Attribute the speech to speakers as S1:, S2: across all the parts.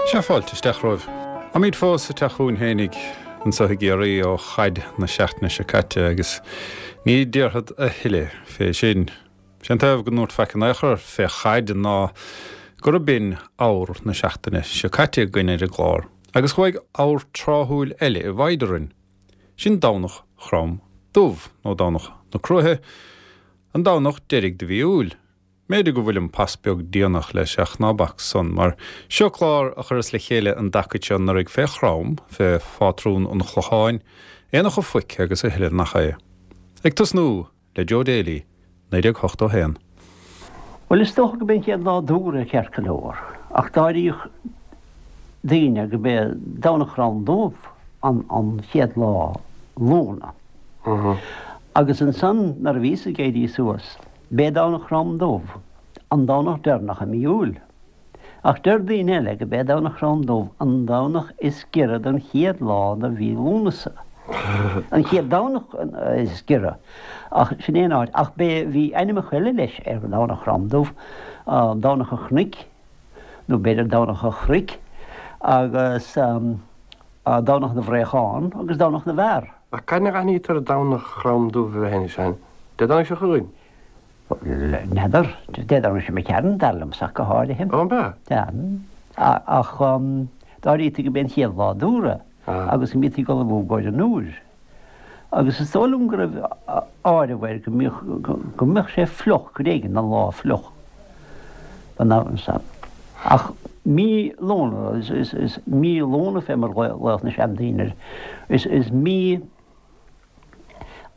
S1: Sea, fáilte isteach romhaibh. Táimid fós sa teach chugainn fhéinig anso i gCiarraí ó chaid na seachtaine seo caite agus ní déarfad a thuilleadh fé sin. Sé an taobh go ndúrt faic in aon chor fé chaid ná gurb in abhar na seachtaine seo caite againn ar an gclár agus chuaigh abhar tráthúil eile i bhfoighid orainn. Sin Domhnach Chrom Dubh, nó Domhnach na Cruaiche, an Domhnach deiridh de mhí Iúil. M'fhéidir go bhfuilim pas beag déanach leis ach ná bac san, mar seo clár a chuireas le chéile an dtacaid seo anuraidh fé Chrom, fé phátrún an Chlocháin, Aonach a' Phoic agus a thuilleadh nach é. Ag tosnú le Joe Daly, 1981.
S2: Bhuel, is dócha go b'é an chéad lá d'Fheabhra ceart go leor, ach d'áiríodh daoine go b'é Domhnach Chrom Dubh an chéad lá Lúna. Agus ansan nuair a bhíos ag éirí suas, b'é Domhnach Chrom Dubh an Domhnach deireanach i mí Iúil. Ach deir daoine eile go b'é Domhnach Chrom Dubh an Domhnach is giorra don chéad lá de mhí Lúnasa. An chéad Domhnach is giorra. Ach sin é an áit. Ach b'é, bhí ainmneacha eile leis ar Dhomhnach Chrom Dubh, Domhnach an Chnoic, nó b'fhéidir Domhnach an Chnoic, agus Domhnach na bhFraochán agus Domhnach na bhFear.
S3: Ach cathain a aithnítear Domhnach Chrom Dubh a bheith anois, an Dé Domhnaigh seo chugainn?
S2: N'fheadar. Dé Domhnaigh seo imigh tharainn, dar liomsa ach go háirithe.
S3: Ó, an b'ea?
S2: Sea. Ach d'áirítí go b'é an chéad lá d'Fheabhra agus go mbítí ag ullmhú i gcomhair an Iúir. Agus is dóigh liom go raibh áireamh air go mbíodh, go mbeadh sé fliuch, gur éigean don lá fliuch don am san. Ach mí Lúna, is mí Lúna fé mar ghlaodh na seandaoine air, is mí,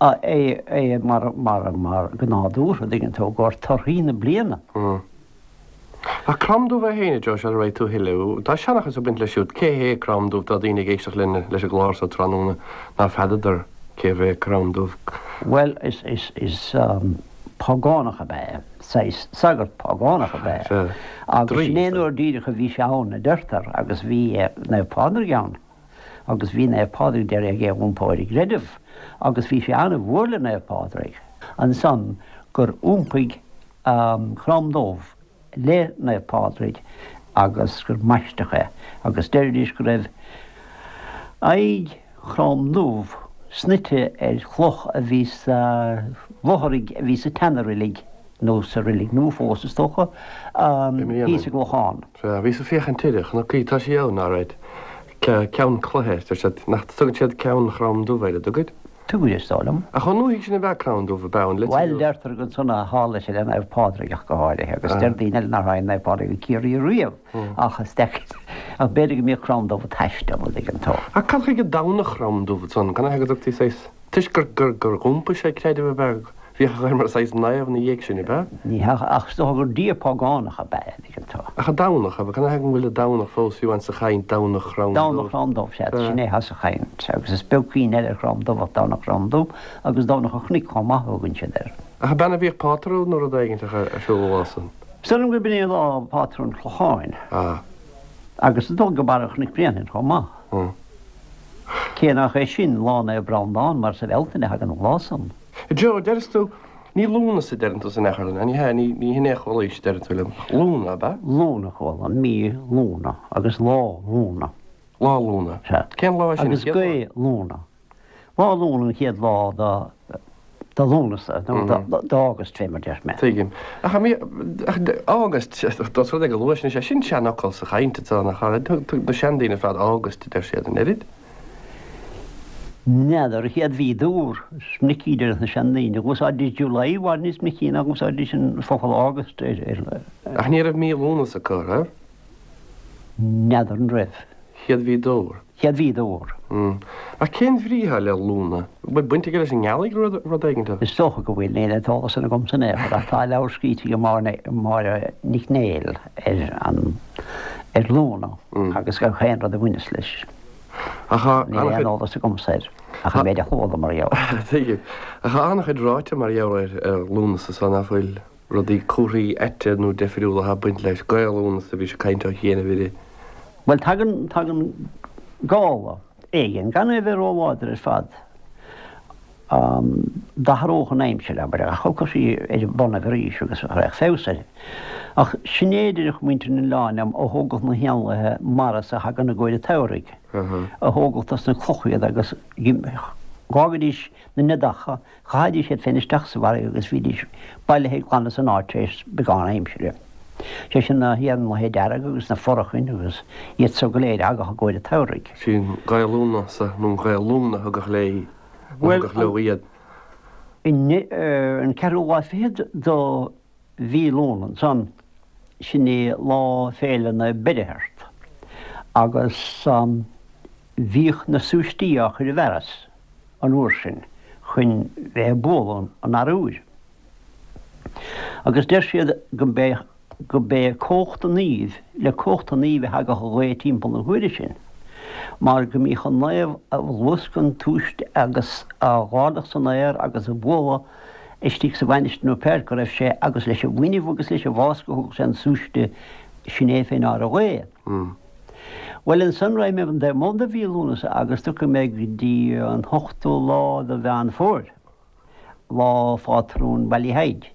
S2: é mar mar go nádúrtha, dtuigeann tú, i gcomhair torthaí na bliana.
S3: Ach Crom Dubh é féin, a Joe, sula raghaidh tú a thuilleadh, tá seanchas ag baint leis siúd. Cé hé Crom Dubh? Tá daoine ag éisteacht linn leis an gclár so tráthnóna ná feadadar cérbh é Crom Dubh.
S2: Bhuel, is is is págánach ab ea é, saghas sagart págánach ab ea é. Agus sin é an uair díreach a bhí sé ann, a deirtear, agus bhí Naomh Pádraig ann. Agus bhí Naomh Pádraig d'iarraidh é a iompó ar an gcreideamh, agus bhí sé an-mhór le Naomh Pádraig ansan gur iompaigh Crom Dubh le Naomh Pádraig agus gur maisteadh é, agus deiridís go raibh aghaidh Chrom Dubh snoite ar chloch a bhí sa bhfothraigh a bhí sa tseana-reilig, nó sa reilig nua fós is dócha, thíos i gClochán.
S3: Sea, bhíos ag féachaint uirthi, chonac í, tá sí ann, alright. Ceann cloiche, deir siad, nach dtugann siad Ceann Chrom Dubh air, an dtugaid?
S2: Tugaid, is dóigh liom.
S3: Ach chomh ndúthaigh sin ab ea Crom Dubh, ab ea, an
S2: litir Bhuel, deirtear gur ansan a tharla sé le Naomh Pádraig ach go háirithe, agus deir daoine eile nár tháinig Naomh Pádraig go Ciarraí riamh, ach is deacair, ach b'fhéidir go mbíodh Crom Dubh ag taisteal, an dtuigeann tú.
S3: Ach cad chuige Domhnach Chrom Dubh ansan, cad chuige go dtugtaí saghas. Toisc gur, gur, gur iompaigh sé creideamh ab ea? Bhíodh air mar saghas naomh ina dhiaidh sin, ab ea?
S2: Ní hea, ach is dócha gur dia págánach ab ea é, dtuigeann tú.
S3: Ach an Domhnach, ab ea? Cad chuige an bhfuil an Domhnach fós fiú amháin sa chaint, Domhnach Chrom Dubh?
S2: Domhnach Chrom Dubh, sea, sin é atá sa chaint, agus is beag cuimhne eile ar Chrom Dubh ach Domhnach Chrom Dubh, agus Domhnach an Chnoic chomh maith a thugann siad air.
S3: Ach ab ea a bhíodh pátrún nó rud éigin ar siúl an lá san?
S2: Is dóigh liom gurb in é lá pátrún an Chlocháin.
S3: Ah.
S2: Agus is dóigh go Barra Chnoic Bréanainn chomh maith.
S3: Hmm.
S2: Cé nach é sin Lá Naomh Breandán mar sa Bhealtaine a thagann an lá san.
S3: Joe, deireas tú, ní Lúnasa a deireann tú san athchur, ní hea, ní, ní hin é a chualaís, deireann tú liom. Lúna, ab ea?
S2: Lúna a chuala, mí Lúna agus lá Lúna.
S3: Lá Lúna.
S2: Sea.
S3: Cén lá é sin?
S2: Agus gaoth Lúna. Lá Lúna an chéad lá de de Lúnasa, nó d'August fé mar deir mé.
S3: Tuigim. Ach an ach August, dós rud é go luath sin, is é sin seanfhocal sa chaint atá nach ea? Thug na seandaoine ar fad August a deir siad, an oiread?
S2: N'fheadar, an chéad mhí d'Fheabhra, is minic a deir na seandaoine. Dh'úsáididís July i bhfad níos minicí ná dh'úsáididís an focal August ar.
S3: Ach ní raibh mí Lúnasa acu, raibh?
S2: N'fheadar an raibh.
S3: Chéad mhí d'Fheabhra.
S2: Chéad mhí d'Fheabhra.
S3: Ach cén bhrí atá le Lúna? An bhfuil baint aige leis an ngealaigh nó rud éigin?
S2: Is dócha go bhfuil, níl an t-eolas san agamsa in aon chor, ach tá leabhar scríte ag Máire Nic Néill ar an ar Lúna agus gach aon rud a bhaineas leis.
S3: Ach tá
S2: Níl aon eolas agamsa air ach an méid a chuala mar gheall
S3: air. Tuigim. Ach tá an-chuid ráite mar gheall ar Lúnasa so nach bhfuil? Rudaí comharthaí aite nó deifriúla atá ag baint leis. Gaoth Lúnasa a bhí sé ag caint ó chianaibh uirthi.
S2: Bhuel, tagann, tagann gála éigin, gan é a bheith róláidir ar fad. D'athródh an aimsir, abair, ach thiocfadh sí ar a bonnaibh arís agus raghadh feabhas uirthi. Ach sin é a deireadh muintir an oileáin liom, a thógadh na héanlaithe mara so a thagann i gcomhair an tsamhraidh, a thógadh dos na clocha iad agus dh'fhágaidís na neadacha, Chaithidís iad féin isteach sa bhfarraige agus bhídís bailithe glan as an áit tar éis beagán aimsire. Sé sin na héanlaithe dearga agus na forachain agus iad so go léir a thagadh i gcomhair an tsamhraidh.
S3: Sí an Ghaoth Lúnasa nó an Ghaoth Lúna a thugadh léi, a thugadh leo iad.
S2: An ceathrú lá fichead do mhí Lúna ansan, sin é lá féile Naomh Beirtheart, agus bhíodh na súistí á chur i bhfearas. an uair sin chun bheith ag bualadh an arbhair. Agus deir siad go mb'é go mb'é cumhacht an naoimh, le cumhacht an naoimh a thagadh an ghaoth timpeall na huaire sin, mar go mbíodh an naomh ag luascadh an tsúiste agus á dh'ardach san aer agus á bhualadh istigh sa mhainistir nó pé áit go raibh sé agus leis an bhfuinneamh agus leis an bhfáscadh a thugadh sé an súiste sin é fé ndeár an ghaoth. Bhuel, ansan raghaidh mé an taobh amuigh de mhí Lúnasa agus tiocfaidh mé go dtí an t-ochtú lá de Mheán Fómhair, lá phátrún Bhallyheigue,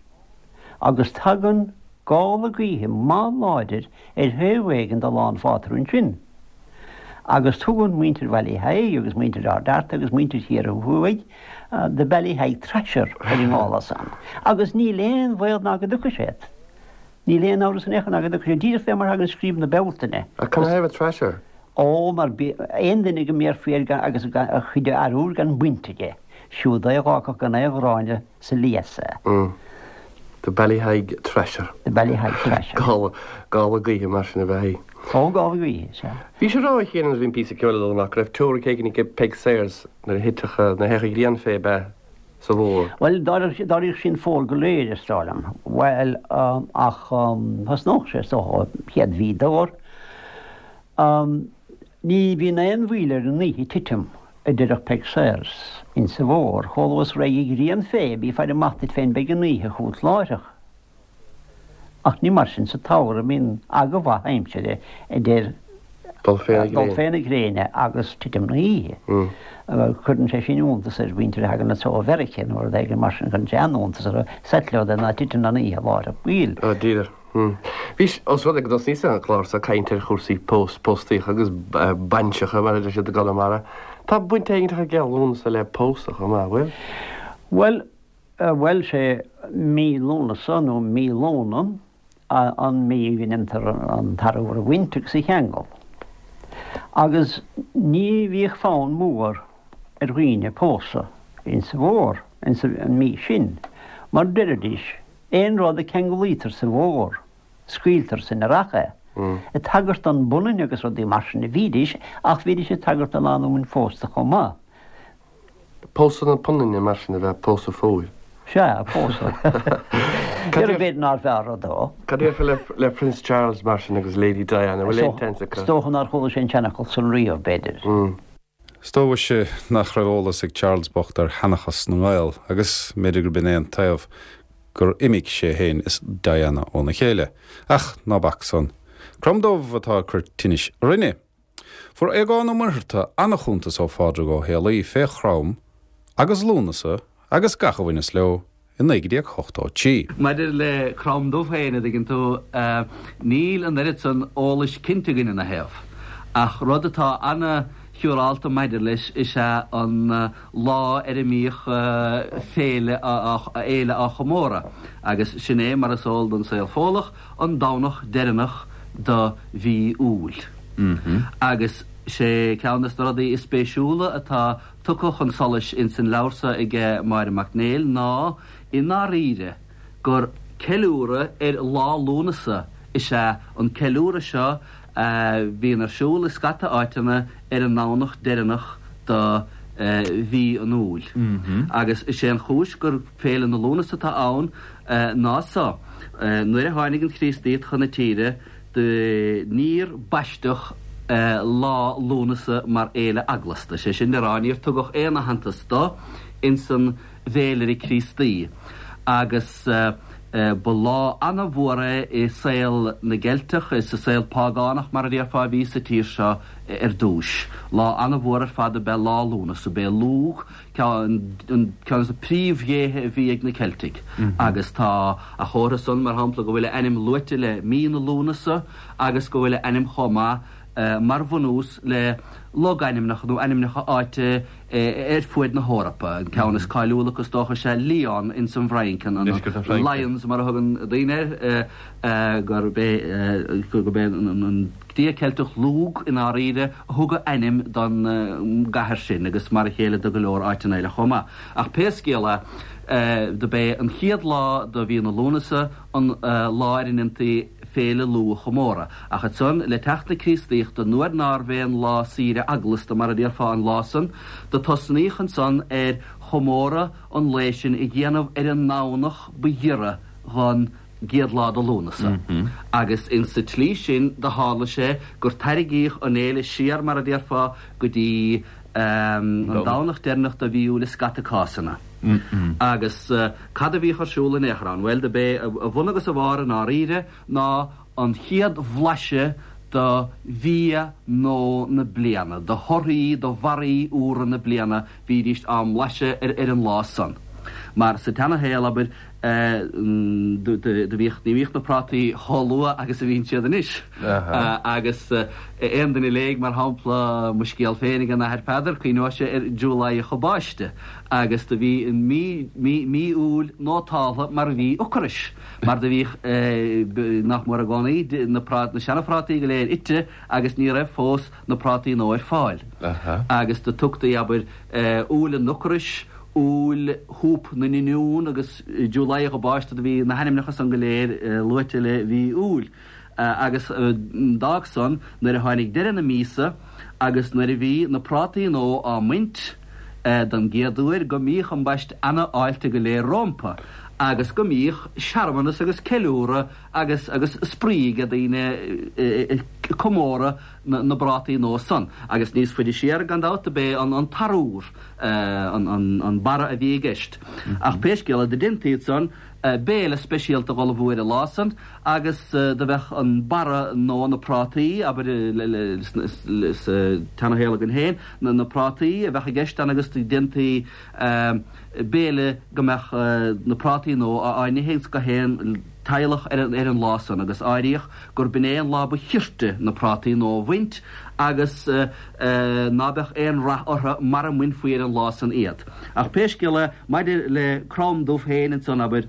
S2: agus tagann gála gaoithe maith láidir ar thaobh éigin de lá an phátrúin sin. Agus tugann muintir Bhallyheigue agus muintir Ard Fhearta agus muintir Chiarraí Thuaidh The Ballyheigue Thrasher ar an ngála san, agus níl aon bhaol ná go dtiocfaidh sé. Níl aon amhras in aon chor ná go dtiocfaidh sé díreach fé mar thagann scríob na Bealtaine.
S3: Ach canathaobh Thrasher?
S2: Ó, mar aon duine go mbéarfaí air gan agus a chuid arbhair gan baint aige, siúd é a dh'fhágfadh gan aon ghráinne sa lios
S3: é. The Ballyheigue Thrasher.
S2: The Ballyheigue Thrasher.
S3: Gála, gála gaoithe mar sin ab ea í.
S2: Ó, gála gaoithe, sea.
S3: Bhís ag rá a Chéin nuair a bhí an píosa ceoil ag dul amach go raibh teoiric éigin ag Peig Sayers nuair a thitfeadh, nuair a théadh an ghrian fé ab ea? sa bhfómhar.
S2: Bhuel, d'éiríodh sí an fómhar go léir, is dóigh liom. Bhuel, ach thosnódh sé, is dócha, chéad mhí d'fhómhar. Ní bhíonn aon mhoill ar an oíche titim, a deireadh Peig Sayers, insa bhfómhar. Chomh luath is a raghaidh an ghrian fé, bí ag faire amach duit féin, beidh an oíche chugat láithreach. Ach ní mar sin sa tsamhradh, bíonn aga mhaith aimsire idir
S3: dul
S2: fé na gréine agus titim na hoíche. Cuireann sé sin iontas ar mhuintir a thagann anso ó Mheiriceá nó rud éigin mar sin, cuireann sé an-iontas orthu, settleodd ná titeann an oíche láithreach baill.
S3: Ó, díreach. Bhís, ós rud é go dtosnaíos an clár seo ag caint ar chúrsaí pós, póstaíocha agus bainseacha, mar a deir siad i gConamara, tá baint éigin ag Lúnasa le pósadh chomh maith, bhfuil?
S2: Bhuel, Bhuel, sé mí Lúnasa nó mí Lóna an mhí go ndéantar an t-arbhar a bhaint agus a cheangal. Agus ní bhíodh fonn mór ar dhaoine pósadh insa bhfómhar, insa mhí sin, mar deiridís, aon rud a ceanglaítear sa bhfómhar, scaoiltear san earrach é. Ag tagairt don bpunann agus rudaí mar sin a bhídís, ach bhídís ag tagairt don lánúin phósta chomh maith.
S3: Pósadh na punainne mar sin ab ea pósadh fómhair.
S2: Sea, pósadh. Cad b'fhéidir nár bhfearr rud dó.
S3: Cad a déarfá le Prince Charles mar sin agus Lady Diana, bhfuil aon tseans acu?
S2: Is dócha nár chuala sé an seanfhocal san riamh, b'fhéidir.
S1: Is dóigh mhuise nach raibh eolas ag Charles bocht ar sheanchas na nGael agus mb'fhéidir gurb in é an taobh gur imigh sé féin is Diana óna chéile. Ach ná bac san. Crom Dubh atá ag cur tinnis orainne. Fuair Aogán Ó Muircheartaigh an-chuntas ó Phádraig Ó Héalaí fé Chrom agus Lúnasa agus gach a bhaineas leo i 1983.
S4: Maidir le Crom Dubh féin, a dtuigeann tú, níl an oiread san eolais cinnte againn ina thaobh. Ach rud atá ana-shiúrálta maidir leis is ea an lá ar a mbíodh féile fhéile á chomóradh, agus sin é, mar is eol don saol Fódhlach, an Domhnach deireanach do mhí Iúil. Agus sé ceann des na rudaí is spéisiúla atá tugtha chun solais ins an leabhar so aige Máire Mac Néill ná, i ndáiríre, gur ceiliúradh ar Lá Lúnasa is ea an ceiliúradh seo a bhíonn ar siúl i scata áiteanna ar an nDomhnach deireanach do mhí an Iúil. Agus is é an chúis gur Féile na Lúnasa atá ann ná so, nuair a tháinig an Chríostaíocht chun na tíre, do níor baisteadh Lá Lúnasa mar fhéile eaglasta, sé sin le rá, níor tugadh aon aitheantas do ins an bhféilire Críostaí. Agus. Ba lá ana-mhór é i saol na gCeilteach, is sa saol págánach mar a déarfá a bhí sa tír seo ar dtúis. Lá ana-mhór ar fad ab ea Lá Lúnasa. B'é Lugh ceann de na príomhdhéithe a bhí ag na Ceiltigh agus tá a chomhartha san, mar shampla, go bhfuil a ainm luaite le mí na Lúnasa agus go bhfuil a ainm chomh maith mar bhunús le logainmneacha nó ainmneacha áite ar fuaid na hEorpa. An ceann is cáiliúla acu is dócha is ea Lyon ins an bhFrainc, an Lyons mar a thugann daoine air, gurb é gurb é an dia Ceilteach Lugh i ndáiríre a thug a ainm don gcathair sin agus mar a chéile do go leor áiteanna eile chomh maith. Ach pé scéal é, do b'é an chéad lá de mhí na Lúnasa an lá ar a ndéantaí Féile Lugh a chomóradh. Ach ansan, le teacht na Críostaíochta, nuair nárbh aon lá saoire eaglasta mar a déarfá an lá san, do tosnaíodh ansan ar chomóradh an lae sin a dhéanamh ar an nDomhnach ba ghiorra dhon gcéad lá de Lúnasa. Agus insa tslí sin do tharla sé gur tairrigíodh an fhéile siar mar a déarfá go dtí an Domhnach deireanach de mhí Iúil i scata cásanna. Agus cad a bhíodh ar siúl in aon chor ann? Bhuel, do b'é a bhun agus a bharr i ndáiríre ná an chéad bhlaiseadh de bhia nua na bliana, de thorthaí, de bharraí úra na bliana, bhídíst á mblaiseadh ar an lá san. Mar sa tseanashaol, abair, do bhíodh, ní bhíodh na prátaí chomh luath agus a bhíonn siad anois. Agus aon duine a léigh, mar shampla, mo scéal féin ag an Athair Peadar, cuimhneoidh sé ar July a Báiste. Agus do bhí an mí, mí, mí Iúil nótáltha mar mhí ocrais, mar do bhíodh, nach mór i gcónaí, na prát, na seana-phrátaí go léir ite agus ní raibh fós na prátaí nua ar fáil. Agus do tugtaí, abair, Iúil an ocrais, Iúil shúp na n-oinniún agus July a Báiste, do bhí na hainmneacha san go léir luaite le mhí Iúil. Agus d'fhág san, nuair a tháinig deireadh na míosa agus nuair a bhí na prátaí nua á mbaint don gcéad uair, go mbíodh ambaist ana-fháilte go léir rómpa agus go mbíodh searmanas agus ceiliúradh agus agus spraoi ag daoine ag comóradh na bprátaí nua san. Agus níos faide siar, gan dabht, do b'é an t-arúr an barra a bhí i gceist. Ach pé scéal é, do deintaí ansan béile speisialta dh'ullmhú ar an lá san agus do bheadh an barra nó na prátaí, abair, sa tseanashaol againn féin, na prátaí a bheadh i gceist ann agus do deintaí béile go mbeadh na prátaí nua á n-ithe ins gach aon teaghlach ar an lá san agus áiríodh gur b'in é an lá ba chirte na prátaí nua a bhaint agus ná beadh aon rath orthu mara mbainfí ar an lá san iad. Ach pé scéal é, maidir le Crom Dubh féin ansan, abair,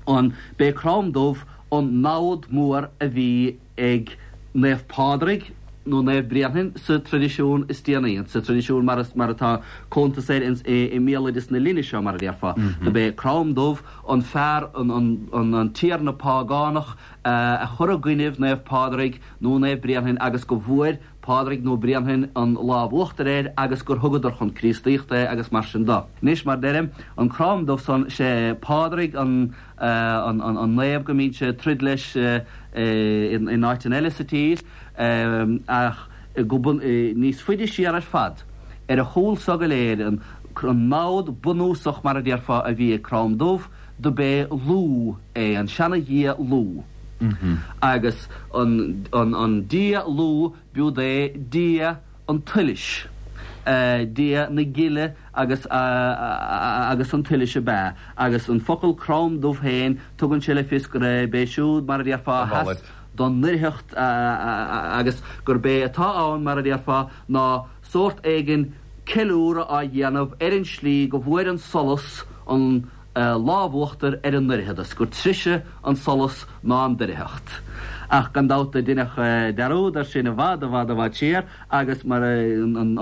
S4: an, b'é Crom Dubh an namhad mór a bhí ag Naomh Pádraig nó Naomh Bréanainn sa traidisiún is déanaí, sa traidisiún mar mar atá cuntas air ins i mbéaloideas na linne seo, mar a déarfá. Do b'é Crom Dubh an fear, an an an tiarna págánach a chuir i gcoinnibh Naomh Pádraig nó Naomh Bréanainn agus go bhfuair Pádraig nó Bréanainn an lámh uachtair air agus gur thugadar chun Críostaíochta é agus mar sin do. Anois, mar deirim, an Crom Dubh san, sé Pádraig an an naomh go mbíonn sé ag troid leis in áiteanna eile sa tír ach go níos faide siar ar fad, ar a chúl so go léir, an namhad bunúsach mar a déarfá a bhí ag Crom Dubh, do b'é Lugh é, an seana-dhia Lugh. Agus an dia Lugh, b'iúd é dia an tsolais, dia na gile agus agus an tsolais ab ea. Agus an focal Crom Dubh féin, tugann sé le fios gurb é siúd, mar a déarfá, a sheas don ndoircheacht agus gurb é atá ann, mar a déarfá, ná sórt éigin ceiliúradh á dhéanamh ar an slí go bhfuair an solas an lámh uachtair ar an ndoircheadas, gur treise an solas ná an doircheacht. Ach gan dabht do deineadh dearúd air sin i bhfad, i bhfad, i bhfad siar agus mar an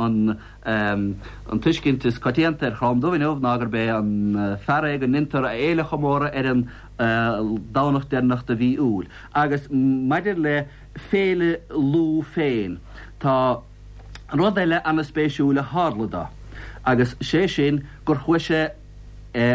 S4: an tuiscint is coitianta ar Chrom Dubh inniu ná gurb é an fear é go ndeintear a fhéile a chomóradh ar an Domhnach deireanach de mhí Iúil. Agus maidir le Féile Lugh féin, tá rud eile ana-spéisiúil a tharla dó, agus sé sin gur chuaigh sé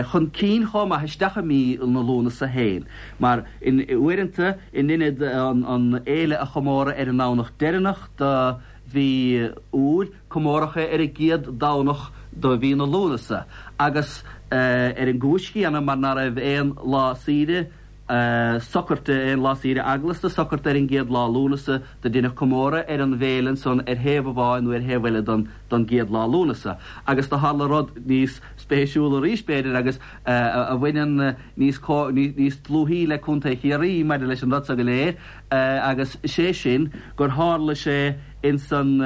S4: chun cinn chomh maith isteach i mí na Lúnasa féin, mar uaireanta in ionad an fhéile a chomóradh ar an nDomhnach deireanach de mhí Iúil, comóradh é ar an gcéad Domhnach de mhí na Lúnasa, agus ar an gcúis chéanna, mar ná raibh aon lá saoire. Socairte, aon lá saoire eaglasta, socairte ar an gcéad lá Lúnasa, do deineadh comóradh ar an bhféile ansan ar thaobh amháin nó ar thaobh eile don don gcéad lá Lúnasa. Agus do tharla rud níos spéisiúla arís, b'fhéidir, agus a bhaineann níos níos dlúthaí le Contae Chiarraí maidir leis an rud so go léir, agus sé sin gur tharla sé insan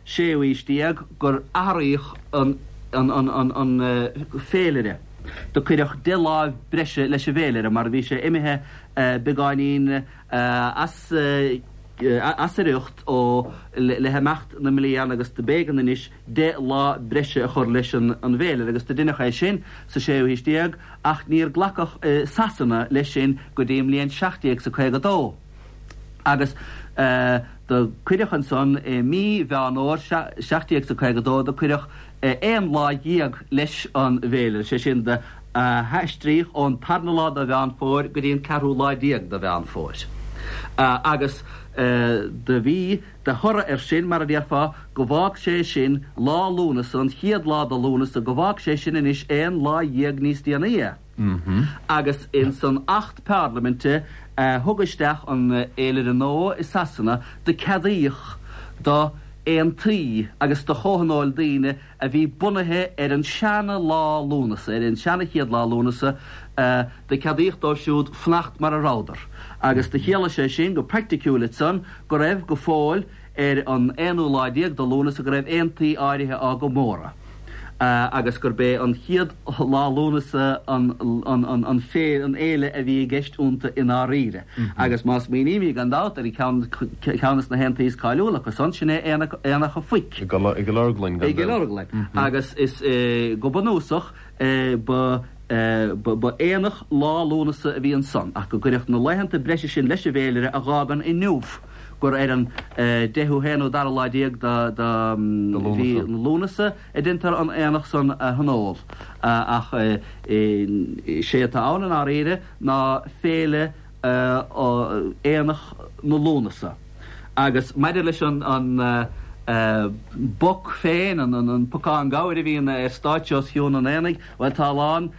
S4: séú haois déag gur athraíodh an an an féilire. Do cuireadh deich lá breise leis an bhféilire mar bhí sé imithe beagáinín as as a riocht ó le himeacht na mblian agus do b'éigean anois deich lá breise a chur leis an bhféilire agus do deineadh é sin sa séú haois déag ach níor glacadh i Sasana leis sin go dtí an mbliain 1752. Agus do cuireadh ansan i mí Mheán Fhómhair 1752 do cuireadh aon lá dhéag leis an bhféilire, sé sin do haistríodh ón tarna lá de Mheán Fómhair go dtí an ceathrú lá déag de Mheán Fómhair. Agus do bhí de thoradh air sin, mar a déarfá, go bhfág sé sin lá Lúnasa, an chéad lá de Lúnasa, go bhfág sé sin anois aon lá dhéag níos déanaí é. Agus ins an Acht Parlaiminte a thug isteach an fhéilire nua i Sasana do ceadaíodh do aontaí agus do chomhthionóil daoine a bhí bunaithe ar an seana lá Lúnasa, ar an seana chéad lá Lúnasa, do ceadaíodh dóibh siúd fanacht mar a rabhadar. Agus do chiallaigh sé sin go praiticiúil ansan go raibh go fóill ar an aonú lá déag de Lúnasa go raibh aontaí áirithe á gcomóradh. agus gurb é an chéad lá Lúnasa an an fhéile a bhí i gceist iontu i ndáiríre. Agus má smaoinímid, gan dabht, ar cheann de na haontaí is cáiliúla acu san, sin é Aonach an Phoic.
S3: I gCill Orglan,
S4: gan dabht. I gCill Orglan. Agus is go bunúsach ba ba aonach lá Lúnasa a bhí ansan, ach go gcuireadh na laethanta breise sin leis an bhféilire a dh'fhágann inniu gur ar an deichiú haonú dara lá déag de mhí Lúnasa a deintear an aonach san a thionól. Ach sé atá ann i ndáiríre ná féile Aonach na Lúnasa. Agus maidir leis an bpoc féin, an pocán gabhair a bhíonn ar stáitse os cionn an aonaigh, bhuel tá a lán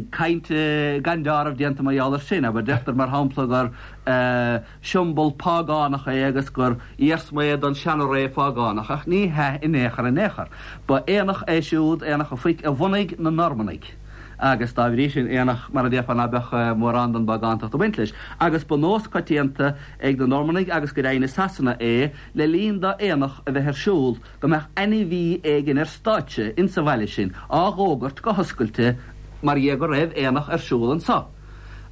S4: cainte gan deáramh déanta mar gheall air sin. Abair, deirtear mar shampla gur siombal págánach é agus gur iarsma é don seana-ré phágánach, ach ní hea in aon chor in aon chor. Ba aonach é siúd, Aonach an Phoic, a bhunaigh na Normannaigh agus dá bhrí sin aonach mar a déarfá ná beadh mórán den bpágántacht ag baint leis. Agus ba nós coitianta ag na Normannaigh agus go deimhin i Sasana é le linn d'aonach a bheith ar siúl, go mbeadh ainmhí éigin ar stáitse insa bhaile sin á dh'fhógairt go hoscailte mar dhea go raibh aonach ar siúl anso.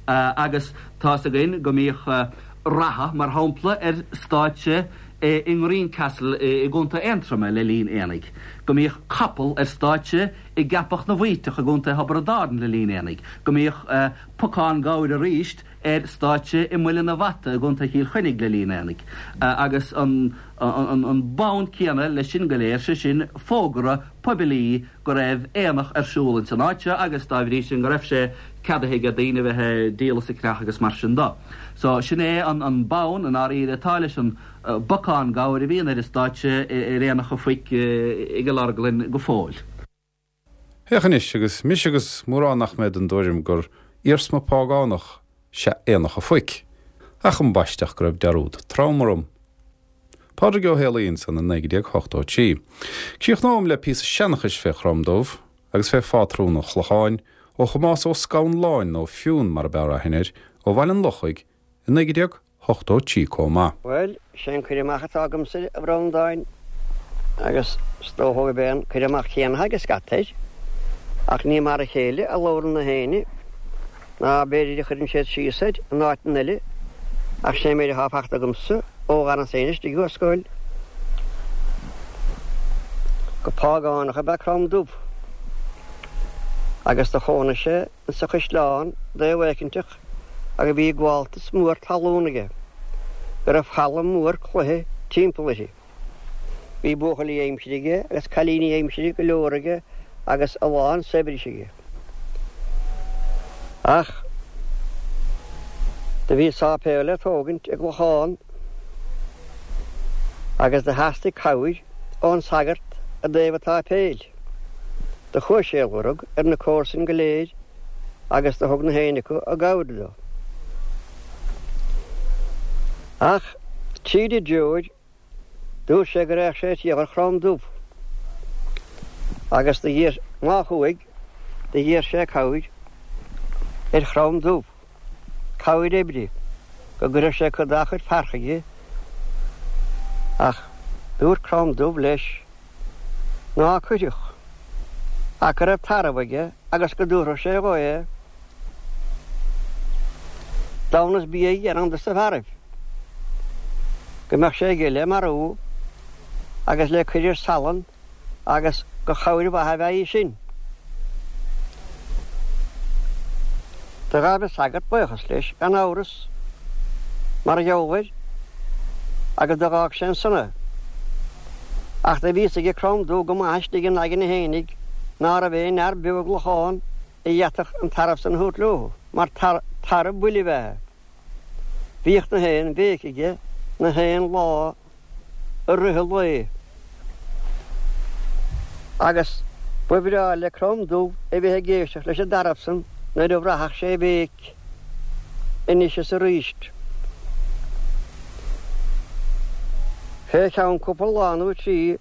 S4: Agus tá's againn go mbíodh reatha, mar shampla, ar stáitse i nGreencastle i gContae Aontroma le linn aonaigh, go mbíodh capall ar stáitse i gCeapach na bhFaoiteach i gContae Thiobraid Árann le linn aonaigh, go mbíodh pocán gabhair aríst ar stáitse i Muileann a' Bhata i gContae Chill Chainnigh le linn aonaigh, agus an an bonn céanna leis sin go léir, sé sin fógra poiblí go raibh aonach ar siúl ins an áit seo agus dá bhrí sin go raibh sé ceadaithe ag daoine a bheith ag díol is ag ceannach agus mar sin do. So sin é an bonn i ndáiríre atá leis an bpocán gabhair a bhíonn ar an stáitse ar Aonach an Phoic i gCill Orglan go fóill.
S1: Féach anois, agus mise agus mórán nach mbeidh den dtuairim gur iarsma págánach 'sea Aonach a' Phoic, ach ambaiste go raibh dearúd trom orm. Pádraig Ó Héalaí ansan i 1983. Críochnóm le píosa seanchais fé Chrom Dubh agus fé phátrún an Chlocháin ó Thomás Ó Scanláin nó Fionn mar ab fhearr aithne air, ó Bhaile an Lochaigh i 1983 comh maith.
S2: Bhuel, sé an cur amach atá agamsa, a Bhreandáin, agus is dócha gurb é an cur amach céanna atá ag scata air, ach ní mar a chéile a labhrann na héinne, ná b'fhéidir a chuireann siad síos air in áiteanna eile, ach sé an méid atá fachta agamsa ó dh'fhanas féin istigh i scoil, gur págánach ab ea Crom Dubh, agus do chónaigh sé insa chaisleán dtaobh éicinteach agus bhí gabháltas mór talún aige, go raibh falla mór cloiche timpeall uirthi. Bhí buachaillí aimsire aige agus cailíní aimsire go leor aige agus a lán saibhris aige. Ach do bhí sáipéal le tógaint i gClochán agus do theastaigh cabhair ón sagart i dtaobh an tsáipéil. Do chuaigh sé a lorg ar na comharsain go léir agus do thug na héinne acu a gcabhair dó. Ach tríd an dtreoir, dúirt sé go raghadh sé triall ar Chrom Dubh. Agus do dh'iarr, má chuaigh, do dh'iarr sé cabhair ar Chrom Dubh, cabhair oibre, go gcuirfeadh sé cuid dá chuid fear chuige. Ach dúirt Crom Dubh leis ná cuirfeadh, ach go raibh tarbh aige agus go dtabharfadh sé dhó é. Damhnas bia a dhéanamh dos na fearaibh, go mbeadh sé aige le marú agus le cuir ar salann agus gur chabhair mhaith a bheadh í sin. Do ghabh an sagart buíochas leis, gan amhras, mar gheall air, agus do dh'fhág sé ansan é. Ach do bhí fhios aige Crom Dubh go maith istigh ina aigne fhéinig ná raibh aon fhear beo i gClochán a d'fhéadfadh an tarbh san a thabhairt leo, mar tarbh buile ab ea é. Bhíodh na haon bhéic aige na haon lá i rith an lae. Agus ba bhreá le Crom Dubh a bheith ag éisteacht leis an dtarbh san nuair a bhraithfeadh sé a bhéic anois is aríst. Fé cheann cúpla lá nó trí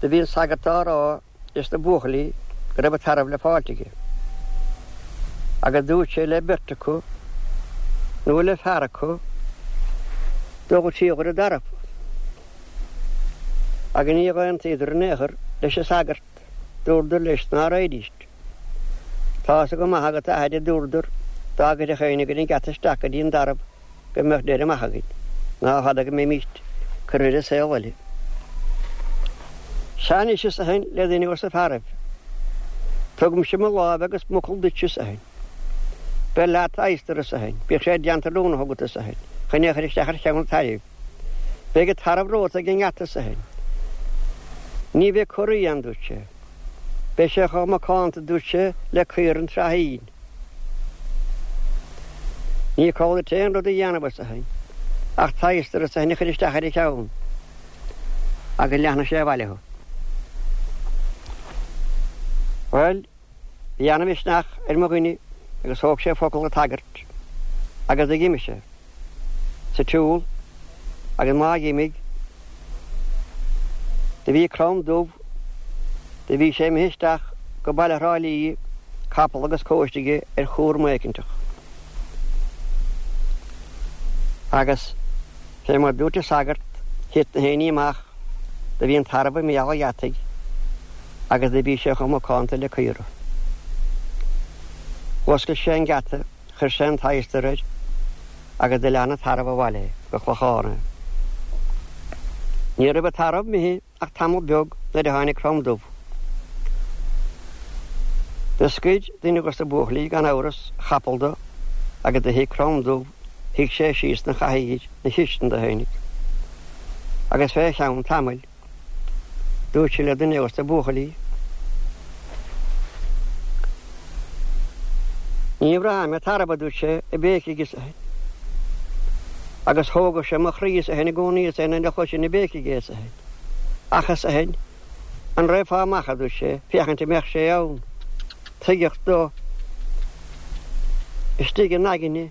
S2: do bhí an sagart á rá leis na buachaillí go raibh an tarbh le fáilt aige, agus dúirt sé le beirt acu, nó le fear acu, dul ag triall ar an dtarbh. Agus níor aontaíodar in aon chor leis an sagart, dúradar leis ná raghaidíst. Tá's go maith agat, a athair, a dúradar, dá gcuirfeadh éinne againn an geata isteach go dtí an dtarbh, go mbeadh deireadh maith againn, ná fada go mbeimíst curtha ar an saol eile. Sea anois, arsa eisean le duine dos na fearaibh, tugaimse mo láimh agus m'fhocal duit, arsa eisean. Beir leat adhastar, arsa eisean, bíodh sé déanta oiriúnach agat, arsa eisean, chun é a chur isteach ar cheann an tairbh. Beidh an tarbh romhat ag an ngeata, arsa eisean. Ní bheidh corraí ann, dúirt sé. Beidh sé chomh macánta, dúirt sé, le caora an tsraithín. Ní call duit aon rud a dhéanamh, arsa eisean, ach t'adhastar, arsa eisean, a chur isteach ar a cheann, agus leanfaidh sé abhaile thú. Bhuel, bhí ana-mhisneach ar mo dhuine agus thóg sé focal an tsagairt agus d'imigh sé sa tsiúl agus má dh'imigh, do bhí Crom Dubh, do bhí sé imithe isteach go baile Thrá Lí, capall agus cóiste aige ar chúram éicinteach. Agus fé mar dúirt an sagart, thit na haon ní amach, do bhí an tarbh i mbéal an gheataigh agus do bhí sé chomh macánta le caora. Dh'oscail sé an geata, chuir sé an t-adhastar air agus do lean an tarbh abhaile go Clochán é. Ní raibh an tarbh imithe ach tamall beag nuair a tháinig Crom Dubh. Do scoir duine dos na buachaillí gan amhras a chapall do agus do shuigh Crom Dubh, shuigh sé síos 'na chathaoir 'na chistin dó fhéinig. Agus fé cheann tamaill Dúirt sé le duine dos na buachaillí, Ní bhraithim an tarbh, a dúirt sé, ag béicigh arsa eisean. Agus thógadh sé mo chroí arsa eisean i gcónaí arsa eisean nuair a chloisinn ag béicigh é arsa eisean. Ach arsa eisean, an raghfá amach, a dúirt sé, féachaint an mbeadh sé ann. Tuigeadh dó istigh ina aigne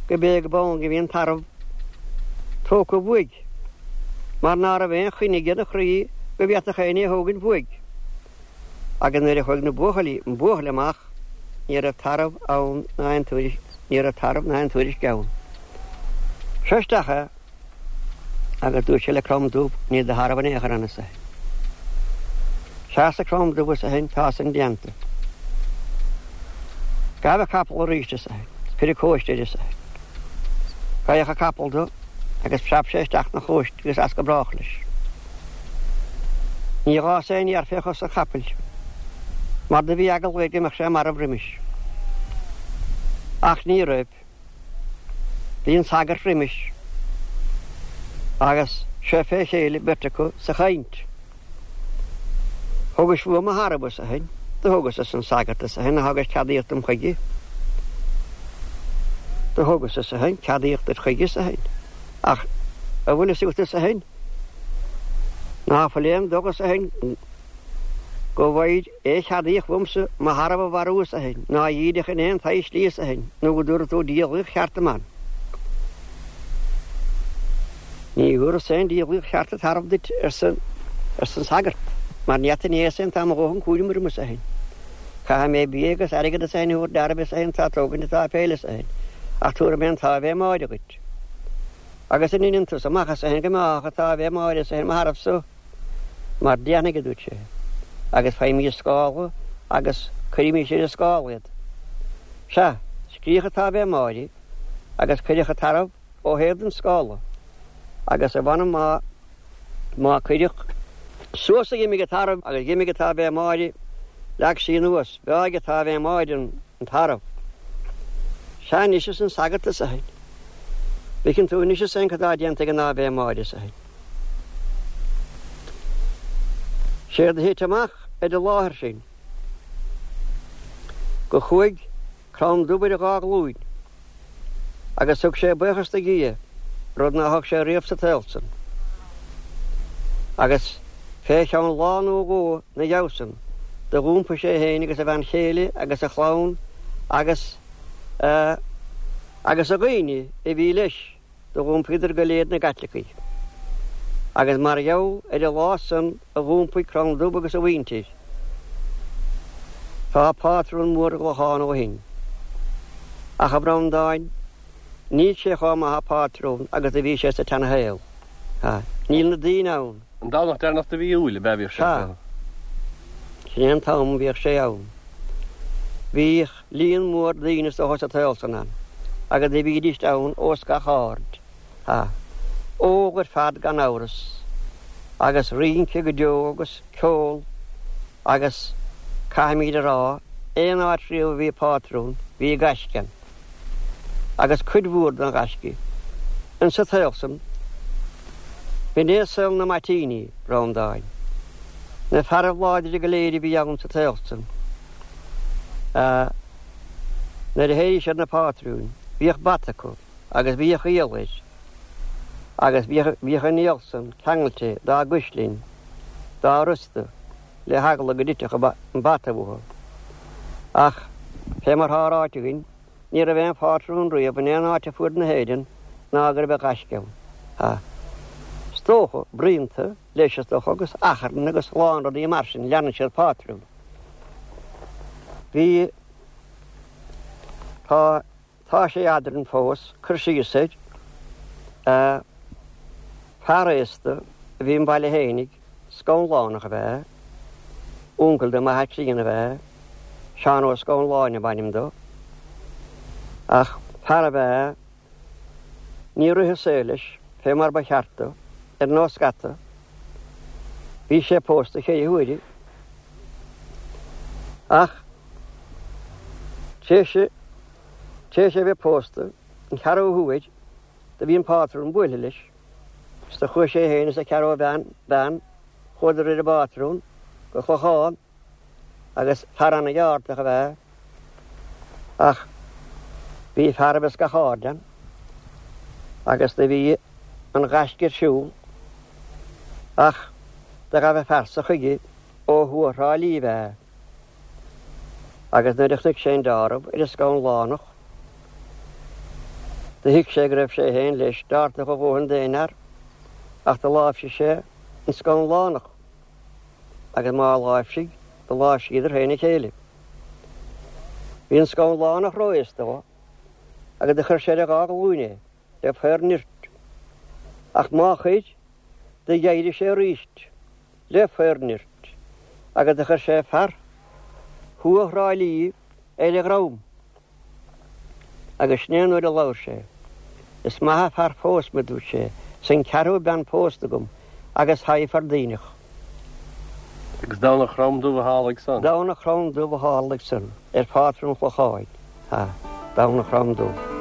S2: go b'é go b'ann go bhí an tarbh tógtha uaidh, mar ná raibh aon choinne aige 'na chroí go bhféadfadh éinne é a thógaint uaidh. Agus nuair a chuaigh na buachaillí, an buachaill amach, ní raibh tarbh ann ná aon tuairisc, ní raibh tarbh ná aon tuairisc ann. Seo isteach é, agus dúirt sé le Crom Dubh, níl do tharbh in aon chor ann, arsa eisean. Sea, arsa Crom Dubh, arsa eisean, tá san déanta. Gabh an capall arís, arsa eisean, cuir an cóiste air, arsa eisean. Gabhadh an capall dó agus phreab sé isteach 'na chóiste agus as go brách leis. Ní dh'fhás aon fhéar fé chos an chapaill, mar do bhí eagla air go mbeadh sé marbh roimis. Ach ní raibh. Bhí an sagart roimis agus seo fé chéile beirt acu sa chaint. Thugais uaim mo tharbh, arsa eisean. Do thugas, arsa an sagart, arsa eisean, ach thugais ceadaíocht dom chuige. Do thugas, arsa eisean, ceadaíocht duit chuige, arsa eisean. Ach a bhfuil fhios agat, arsa eisean, ná fuil aon dóigh, arsa eisean, go bhfaighir aon cheadaíocht uaimse mo tharbh a mharú, arsa eisean, ná a dhíreach in aon tsaghas slí, arsa eisean, nó go dtabharfaidh tú diabhlaíocht cheart dom ann. Ní thabharfas aon diabhlaíocht cheart an tarbh duit, arsa an sagart, mar ní fhada inné is tá mo dhóthain cúraim orm is féin. Caithfidh mé bia agus airgead is féin a thabhairt d'fhearaibh is féin atá ag tógaint an tsáipéil is féin, ach tabharfaidh mé an tÁivé Máire dhuit. Agus an ndeineann tusa amach is féin go mbeáthadh an tÁivé Máire is féin mo tharbh so? Mar déanfaidh, a dúirt sé, agus faighimís scála agus cuirimís ar an scála iad. Sea, scríodh an tÁivé Máire agus cuireadh an tarbh ó thaobh den scála agus a mh'anam má má cuireadh suas a dh'imigh an tarbh agus dh'imigh an tÁivé Máire, leag sí anuas, bheáigh an tÁivé Máire an tarbh. Sea anois arsa an sagart is a bhfeiceann tú anois is féin cad tá déanta ag an Áivé Máire is a. Séard a thit amach ar an láthair sin go chuaigh Crann Dubh ar a dhá ghlúin agus thug sé buíochas do Dhia, rud ná thug sé riamh sa tsaol san. Agus fé cheann lá nó dhó 'na dhiaidh san do dh'iompaigh sé féin agus a bhean chéile agus a chlann agus a agus a dhaoine a bhí leis, Do dh'iompaíodar go léir 'na gCaitlicigh. Agus mar gheall ar an lá san a dh'iompaigh Crann Dubh agus a mhuintir, tá pátrún mór i gClochán ó shin. Ach, a Bhreandáin, níl sé chomh maith a phátrún agus a bhí sé sa tseana-shaol. Níl na daoine ann.
S3: An Domhnach deireanach de mhí Iúil ab ea a bhíodh sé
S2: ann? Sea. Sin é an t-am a bhíodh sé ann. Bhíodh. Líon mór daoine is dócha sa tsaol san ann, agus do bhídíst ann ós gach aird, ha, ól ar fad gan amhras, agus rince go deo agus ceol agus, caithfimíd a rá, aon áit riamh a bhí pátrún, bhí gaisce ann, agus cuid mhór den ghaisce insa tsaol san. B'in é saol na mbaitíní, Breandáin. Na fearaibh láidre go léir a bhí ann sa tsaol san. Nuair a théadh siad 'na pátrúin, bhíodh bata acu agus bhíodh iall air agus bhíodh an iall san ceangailte dá gcuislinn, dá rosta, le heagla go dtitfeadh an bata uathu. Ach, fé mar thá ráite againn, Ní raibh aon phátrún riamh in aon áit ar fuaid na hÉireann ná go raibh gaisce ann. Ha. Is dócha, bruíonta, leis is dócha, agus achrann agus a lán rudaí mar sin, leanann siad pátrún. Bhí, tá, tá sé eadrainn fós, cur síos air, eh, fear aosta a bhí i mbaile fhéinig, Scanlánach ab ea, uncail do m'athair críonna ab ea, Seán Ó Scanláin ab ainm dó. Ach fear ab ea, níor rith an saol leis fé mar ba cheart dó, ar nós scata. Bhí sé pósta cheithre huaire. Ach tar éis é bheith pósta an ceathrú huair, do bhí an pátrún buailthe leis. Is do chuaigh sé féin is a cheathrú bean, chuadar ar an bpátrún go Clochán agus fear ana-gheártach ab ea ach bhí fearaibh as gach aird ann agus do bhí an ghaisce ar siúl ach do ghabh an fear so chuige ó thuaidh Thrá Lí ab ea agus nuair a chonaic sé an deáramh ar an Scanlánach do thuig sé go raibh sé féin leis deártach a dhóthain d'aon fhear ach do láimhsigh sé an Scanlánach agus má láimhsigh, do láimhsíodar féin a chéile. Bhí an Scanlánach ró-aosta dhó agus do chuir sé ar a dhá ghlúin é le faobhar nirt. Ach má chuir, do dh'éirigh sé aríst le faobhar nirt agus do chuir sé fear thuaidh Thrá Lí ar a dhrom. Agus sin é an uair a labhair sé. Is maith a' fear fós me, dúirt sé, 's an ceathrú bean pósta agam agus thaghfar daoineach.
S3: Agus Domhnach Chrom Dubh a tharlaigh san.
S2: Domhnach Chrom Dubh a tharlaigh san, ar phátrún Chlocháin, ha, Domhnach Chrom Dubh.